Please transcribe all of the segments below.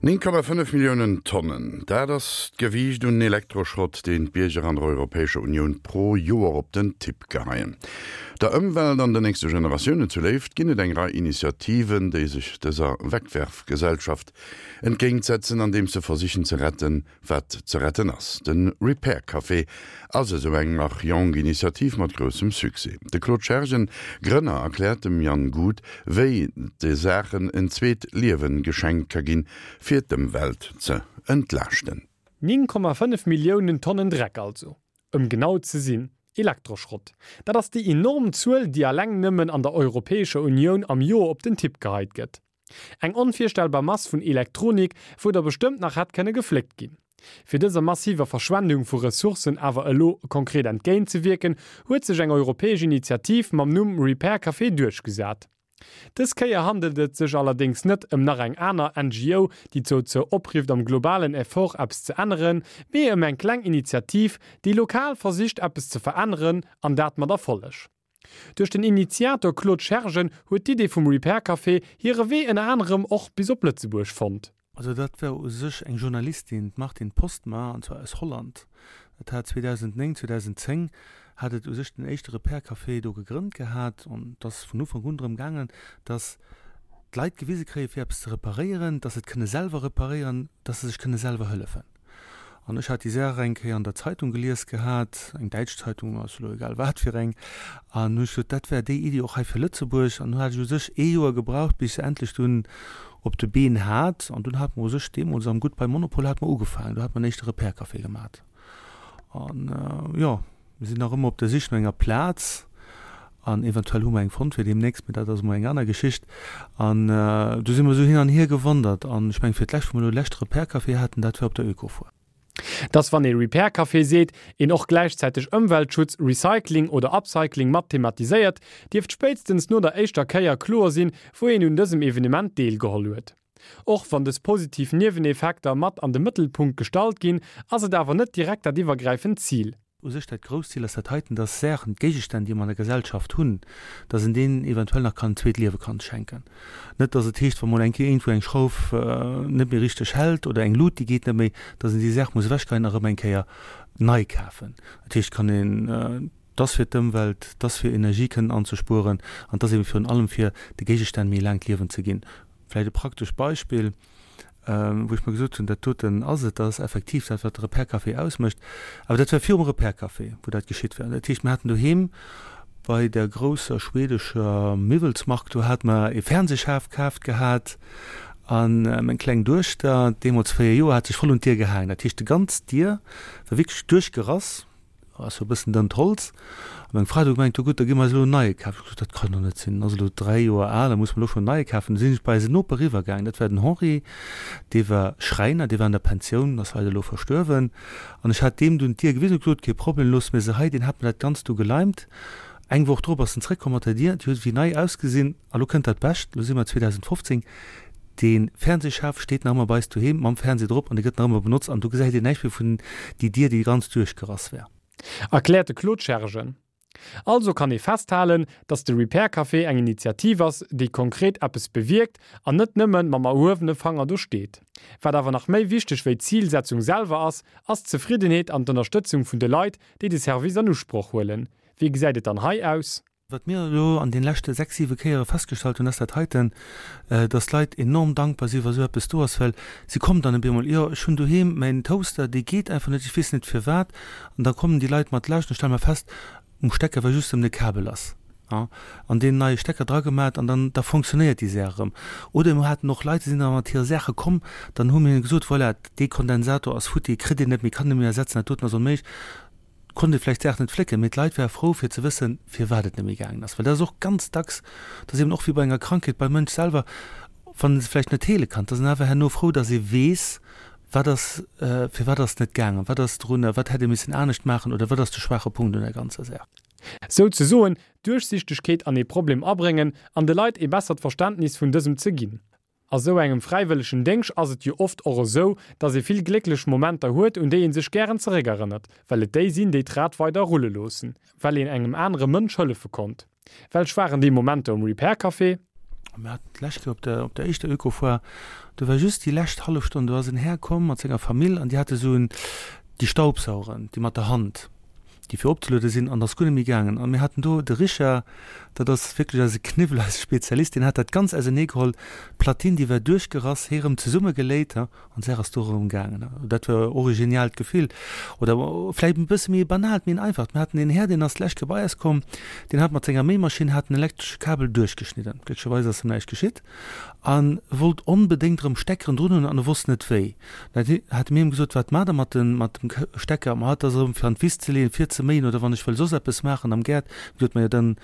9,5 Milliounen Tonnen, dat ass d'Gewiicht un Elektroschrott, deen d'Bierger an der Europäescher Unioun pro Joer op den Tipp geheien. Der Ëmwelt an den nächste Generatiounen zu Léift ginn et eng Rei Initiativen, déi sech dëser Wegwerfgesellschaft entgéintsetzen, andeems se versichen ze retten, Wat ze retten ass. De Repair Café ass esou eng nach jonk Initiativ mat groussem Succès. De Claude Schergen, Grënner, erkläert dem Yann Guth, wéi de Saachen en zweet Liewen geschenkt ka ginn, fir d'Ëmwelt ze entlaaschten. 9,5 Milliounen Tonnen Dreck also, ëm genau ze sinn, Elektroschrott. Dat ass déi enorm Zuel, déi alleng nëmmen an der Europäescher Unioun am Joer op den Tipp geheit gëtt. Eng onvirstellbar Mass vun Elektronik, wou der bestëmmt nach hätt kënne gefléckt ginn. Fir dëser massiver Verschwendung vu Ressourcen awer elo konkret entgéint ze wierken, huet sech eng europäesch Initiativ mam Numm Repair Café duerchgesat. Dës Kéier handelt et sech allerdéngs net ëm nach eng aner NGO, déi dozou oprifft am globalen Effort eppes ze änneren, mee ëm eng kleng Initiativ, déi lokal versicht eppes ze veränneren, an dat mat Erfolleg. Duerch den Initiator Claude Schergen huet d'Idee vum Repair Café hire Wee ënner anerem och bis op Lëtzebuerg fonnt. Also dat war u sech eng Journalistin, d'Martine Postma, an zwar aus Holland. Dat hat 2009, 2010 hat et u sech den éischte Repair Café do gegrënnt gehat an et ass vun Ufank un drëm gaangen, datt d'Leit gewise kréie fir eppes ze reparéieren, datt se et kënne selwer reparéieren, datt se sech kënne selwer hëllefen. An ech hat déi Saach eng Kéier an der Zeitung gelies gehat, eng däitsch Zeitung, ass elo egal wat fir eng, an hu ech gesot, dat wär déi Iddi och hei fir Lëtzebuerg. An du hat ech u sech ee Joer gebraucht, bis ech se endlech dunn op de Been hat. An dunn hat mer u sech deemools am Goodbye Monopol hat mer ugefaangen, do hat mer en éischte Repair-Café gemat. An, jo, mir sinn nach ëmmer op der Sich no enger Plaz an eventuell hu mer eng fonnt fir deemnächst, mee dat ass emol eng aner Geschicht. An du si mer esou hin an hier gewandert an ech mengen, fir d'lescht, wou mer elo de leschte Repair-Café haten, dat war op der Ökofoire. Dass wann ee Repair Café seet, een och gläichzäiteg Ëmweltschutz, Recycling oder Upcycling mat thematiséiert, dierft spéitstens no der éischter Kéier kloer sinn, wou een un dësem Evenement deelgeholl huet. Och wann dës positiv Nieweneffekter mat an de Mëttelpunkt gestallt ginn, ass et awer net direkt dat iwwergräifend Zil. U sech dat grousst Zil ass dat heiten, dass Saachen, Géigestänn, déi mer an der Gesellschaft hunn, dass een deenen eventuell nach kann en zweet Liewe kann schenken. Net, dass et heescht, wa mol eng Kéier iergendwou eng Schrauf net méi richteg hält oder eng Lut, déi geet net méi, dass een déi Saach muss ewechgeheien a rëm eng Kéier nei kafen. Dat heescht, kann een, dass fir d'Ëmwelt, dass fir Energie kënnen anzespueren an dass ebe virun allem fir de Géigestänn méi e laangt Liewen ze ginn. Vläicht e praktescht Beispill, wou ech mer gesot hunn, dat doten ass et, dat ass effektiv dat, wat de Repair Café ausmécht. Awer dat war virum Repair Café, wou dat geschitt war. Dat heescht, mir haten doheem bei der grousser schwedescher Miwwelsmark, do hate mer e Fernsehschaf kaaft gehat a meng kleng Duechter, deemools 4 Joer, hat sech voll un d'Dier gehaangen. Dat heescht, déi ganz Dier war wierklech duerchgerass. Ass jo e bëssen dënnt Holz. A meng Fra huet du gemengt, jo gutt, da gi mer eis elo en neie kafen. Ech hu gesot, dat kann doch net sinn, en ass elo 3 Joer al, da muss mer elo schonn en neie kafen. Du sinn ech bei eisen Noper eriwwer gaangen, dat war den Henri, dee war Schräiner, dee war an der Pensioun, ass leider elo verstuerwen. An ech hat deem dunn d'Dier gewisen, huet gesot, kee Problem, loosse mir se hei. Deen hat mir dat Ganzt du geleimt. Eng Woch drop ass en zréckkomm mat der Dier, déi huet wéi nei ausgesinn. A lo kënnt dat Bescht, lo si mer 2015, dee Fernsehschaf steet nach ëmmer bei eis doheem mam Fernseh drop an dee gëtt nach ëmmer benotzt an do gesäit een näischt méi vun déi Dier, déi ganz duerchgerass war. Erkläert de Claude Schergen. Also kann ee festhalen, datt de Repair Café eng Initiativ ass, déi konkret eppes bewierkt an net nëmmen mam erhuewene Fanger do steet. Wat awer nach méi wichteg wéi d'Zilsetzung selwer ass, ass d'Zefriddenheet an d'Ënnerstëtzung vun de Leit, déi de Service an Usproch huelen. Wéi gesäit et dann hei aus? Wat mir elo an den leschte 6, 7 Kéiere festgestallt hunn, ass dat heiten, dass d'Leit enorm dankbar sinn, wa sou eppes do ass, well si kommen dann op eemol, jo, ech hunn doheem mäin Toaster, dee geet einfach net, ech weess net firwat. An da kommen déi Leit mat Laascht an stelle mer fest, um Stecker war just ëm de Kabel lass, ja, an deen neie Stecker dragemat an dann da fonctionnéiert déi Saach erëm. Oder mir haten och Leit, déi sinn da mat hire Saache komm, dann hu mir hinne gesot, voilà, dee Kondensator ass futti, kritt een net méi, kann een net méi ersetzen, dat doten ass onméiglech. Konnt ee vläicht d'Saach net flécken, mee d'Leit ware frou fir ze wëssen, firwat et net méi gaangen ass. Well dat ass och ganz dacks, dat ass eben och wéi bei enger Krankheet beim Mënsch selwer, wann en se vläicht net heele kann, et ass en awer herno frou, datt ee weess, wat ass, firwat ass et net gaangen, wat ass drun, wat hätt ee missen anescht maachen oder wat ass de schwaache Punkt un der ganzer Saach. Souzesoen Duerchsichtegkeet an ee Problem abréngen an de Leit ee bessert Verständnis vun dësem ze ginn. A sou engem fräiwëllegen Déngsch ass et jo oft och esou, dass ee vill glécklech Momenter huet, un déi ee sech gären zeréckerënnert, well et déi sinn, déi d'Rad weider rulle loossen, well een engem anere Mënsch hëllefe konnt. Welch waren déi Momenter um Repair Café? Mir haten d'lescht Kéier op der, op der éischter Oekofoire, do war just déi lescht hallef Stonn, do ass en Här komm mat senger Famill an déi hate sou en, déi Staubsaueren, déi mat der Hand, déi fir opzeluede sinn, an ass guer net méi gaangen. An mir haten do de Richard, dat ass wierklech eise Kniwwel, eise Spezialist, deen hat dat ganz auserneegeholl, d'Platine, déi war duerchgerass, hee rëm zesummegeléit, An d'Saach ass do erëm gaangen. Dat war och e geniaalt Gefill. Oder vläicht e bësse méi e banaalt, méi en einfacht. Mir haten een Här, deen ass d'lescht Kéier bei eis komm, deen hat mat senger Méimaschinn hat en elektresche Kabel duerchgeschnidden. Glécklecherweis ass em näischt geschitt. A wollt onbedéngt erëm Steckeren drun hunn an e wosst net wéi. Da hate mir him gesot, Wat maacht Der mat dem, mat dem Stecker? Ma dat ass erëm fir an d'Wiss ze leeën, fir ze méien oder wann ech wëll soss eppes maachen am Gaart. Mir gesot, Majo, dann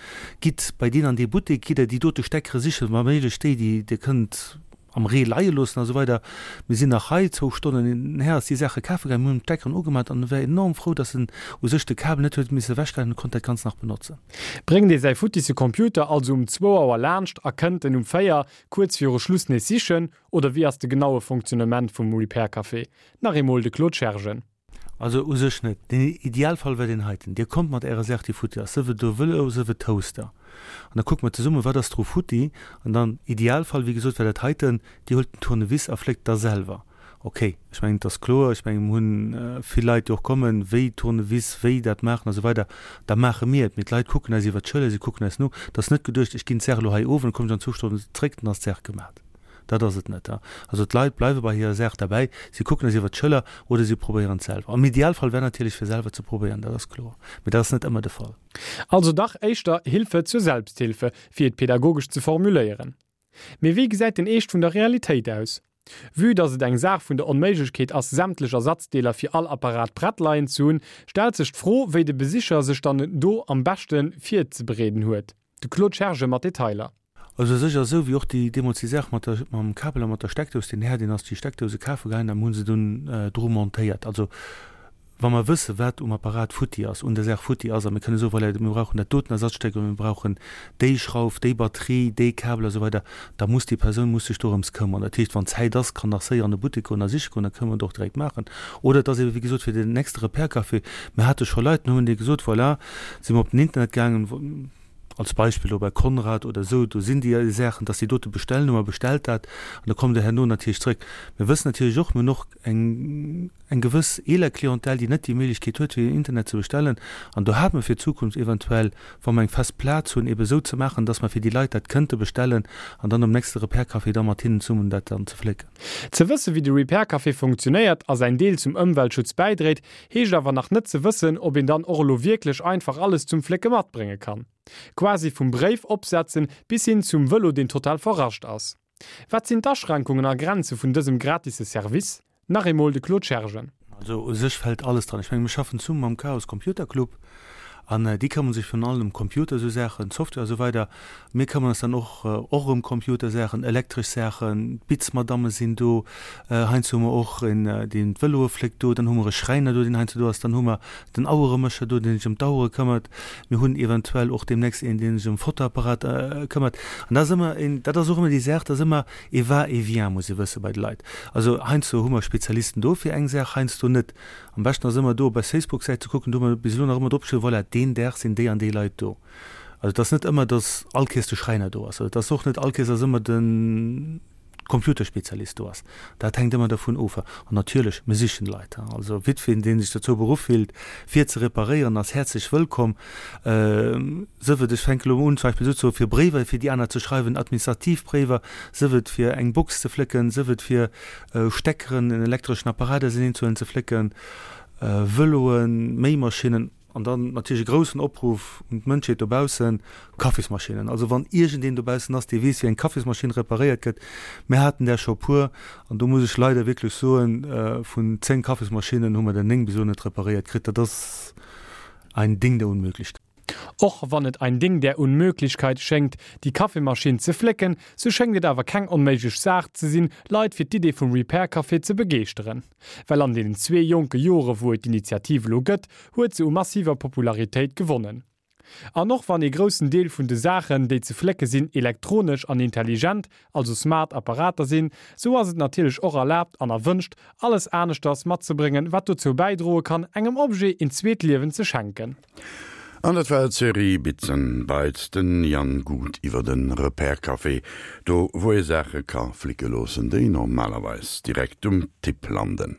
gitt bei deen an dee Buttek, gitt Der déi dote Steckere sichen, wa méiglech déi, déi Dir kënnt am Ree leie loossen a sou weider. Mir sinn nach hei zwou Stonnen hin an her, ass déi Saache kafe gaangen, mir hunn d'Steckeren ugemat an e war enorm frou, dass en u sech de Kabel net huet misse ewechgeheien an konnt dat Ganzt nach benotzen. Bréngt ee säi futtisse Computer also um zwou Auer laanscht a kënnt en um 4 kuerz viru Schluss nees sichen, oder wéi ass de genaue Fonctionnement vum Repair Café? Nach eemol de Claude Schergen. Also u sech net. Den Idealfall wär deen heiten, Dir kommt mat Ärer Saach, déi futti ass, sief et e Vëlo, sief et Toaster, an da kucke mer zesumme wat ass dru futti. An dann, Idealfall, wéi gesot, wär dat heiten, Dir huelt den Tournevis a fléckt da selwer. Okay, ech mengen, et ass kloer, ech mengen, mir hunn vill Leit, déi och kommen, wéi Tournevis, wéi dat maachen a sou weider, da maache mir et. Mee d'Leit kucken eis iwwert d'Schëller, si kucken eis no. Et ass net geduecht, ech ginn d'Saach elo hei of an da kommen ech an zwou Stonnen zréck, dann ass d'Saach gemat. Dat ass et net. Also d'Leit bleiwe bei hirer Saach derbäi, si kucken eis iwwer d'Schëller oder si probéieren et selwer. Am Idealfall wär natierlech fir selwer ze probéieren, dat ass kloer, mee dat ass net ëmmer de Fall. Also dach éischter Hilfe zur Selbsthilfe, fir et pedagogesch ze formuléieren. Mee wéi gesäit den Eescht vun der Realitéit aus? Vue dass et eng Saach vun der Onméiglechkeet ass, sämtlech Ersatzdeeler fir all Apparat prett leien ze hunn, stellt sech d'Fro, wéi de Besicher sech dann do am beschte virzebereeden huet. De Claude Schergen mat Detailer. Also u sech ass esou wéi och déi deemools déi Saach mat der mam Kabel a mat der Steckdous, deen Här deen ass déi Steckdouse kafe gaangen an hu se dunn dru montéiert. Also wa mer wësse wat um Apparat futti ass, un der Saach futti ass a mir kënne soen, voilà, mir brauchen dat doten Ersatzstéck oder mir brauchen déi Schrauf, déi Batterie, dee Kabel a sou weider, da muss déi Persoun muss sech dorëms këmmern. Dat heescht, wann Zäit ass, kann nach séier an de Buttek goen a siche goen, da kënne mer et och direkt maachen. Oder et ass ebe wéi gesot fir den nächste Repair-Café, mir hate scho Leit, dann hu mir deene gesot, voilà, si mer op den Internet gaangen, als Beispill elo bei Conrad oder esou, do sinn déi Saachen, dass déi dote bestellen, hu mer bestellt dat an da kommt Der herno natierlech zrëck. Mir wëssen natierlech och, mir hunn och eng eng gewëss eeler Clientèle, déi net déi Méiglechkeet huet, fir den Internet ze bestellen. An do hate mer fir d'Zukunft eventuell, wa mer eng fest Plaz hunn, ebe esou ze maachen, dass mer fir déi Leit dat kënnte bestellen an dann um nächste Repair Café da mat hinnen zesummen dat dann ze flécken. Ze wësse wéi de Repair Café funktionéiert a säin Deel zum Ëmweltschutz bäidréit, heescht awer nach net ze wëssen, ob een dann och elo wierklech einfach alles zum Flécke matbrénge kann. Quasi vum Bréif opsetzen bis hin zum Vëlo deen total verrascht ass. Wat sinn d'Aschränkungen a Grenze vun dësem gratisse Service? Nach eemol de Claude Schergen. Also u sech fält alles dran. Ech menge mir schaffen zesummen mam Chaos Computer Club an déi këmmere sech virun allem ëm Computer esou Saachen, Software a sou weider. Mir këmmeren eis dann och och ëm Computersaachen, elektresch Saachen, d'Bitzmadamme sinn do, heiansdo hu mer och een, deen d'Vëloe fléckt do, dann hu mer e Schräiner do, deen heiansdo do ass, dann hu mer den Aueremécher do, deen sech ëm d'Auere këmmert, mir hunn eventuell och deemnächst een, deen sech ëm Fotoapparat këmmert. An dat ass ëmmer een, dat ass och ëmmer déi Saach, dat ass ëmmer ee Va-et-vient, muss ee wësse bei de Leit. Also heiansdo hu mer Spezialisten do fir eng Saach, heiansdo net. Am beschten ass ëmmer do op eis Facebook-Säit ze kucken, do hu mer bis elo nach ëmmer dropgeschriwwen, voilà, deen Dag sinn déi an déi Leit do. Also et ass net ëmmer, datt all Kees de Schräiner do ass. Oder et ass och net all Kees, datt ëmmer de Computerspezialist do ass. Dat hänkt ëmmer dervun of. An natierlech, mir sichen Leit. Also jiddwereen, dee sech dozou beruff fillt, fir ze reparéieren, ass häerzlech wëllkomm. Sëf et, ech fänke elo un, zum Beispill esou ze soen, fir Bréiwer fir déi aner ze schreiwen, administrativ Bréiwer, sëf et fir eng Box ze flécken, sëf et fir Steckeren, en elektreschen Apparat auserneenzehuelen, ze flécken, Vëloen, Méimaschinnen. An dann natierlech e groussen Opruff un d'Mënschheet dobaussen, Kaffismaschinnen. Also wann iergendeen dobaussen ass, dee weess, wéi eng Kaffismaschinn reparéiert gëtt, mir haten där scho puer, an do muss ech leider wierklech soen, vun 10 Kaffismaschinnen hu mer der 9 bis elo net reparéiert kritt. Dat ass ein Ding der Unmöglichkeit. Och wann et ein Ding der Unmöglichkeit schéngt, déi Kaffeemaschinn ze flécken, sou schéngt et awer keng onméiglech Saach ze sinn, Leit fir d'Idee vum Repair Café ze begeeschteren. Well an deenen zwee jonke Jore wou et d'Initiativ elo gëtt, huet se u massiver Popularitéit gewonnen. An och wann ee groussen Deel vun de Saachen, déi ze flécke sinn, elektronesch an intelligent, also smart Apparater sinn, sou ass et natierlech och erlaabt an erwënscht, alles aneschters matzebréngen, wat dozou bäidroe kann, engem Objet een zweet Liewen ze schenken. An dat war d'Serie Bits and Bytes, den Yann Gut iwwer de Repair Café, do wou ee Saache ka flicke loossen, déi normalerweis direkt um Tipp landen.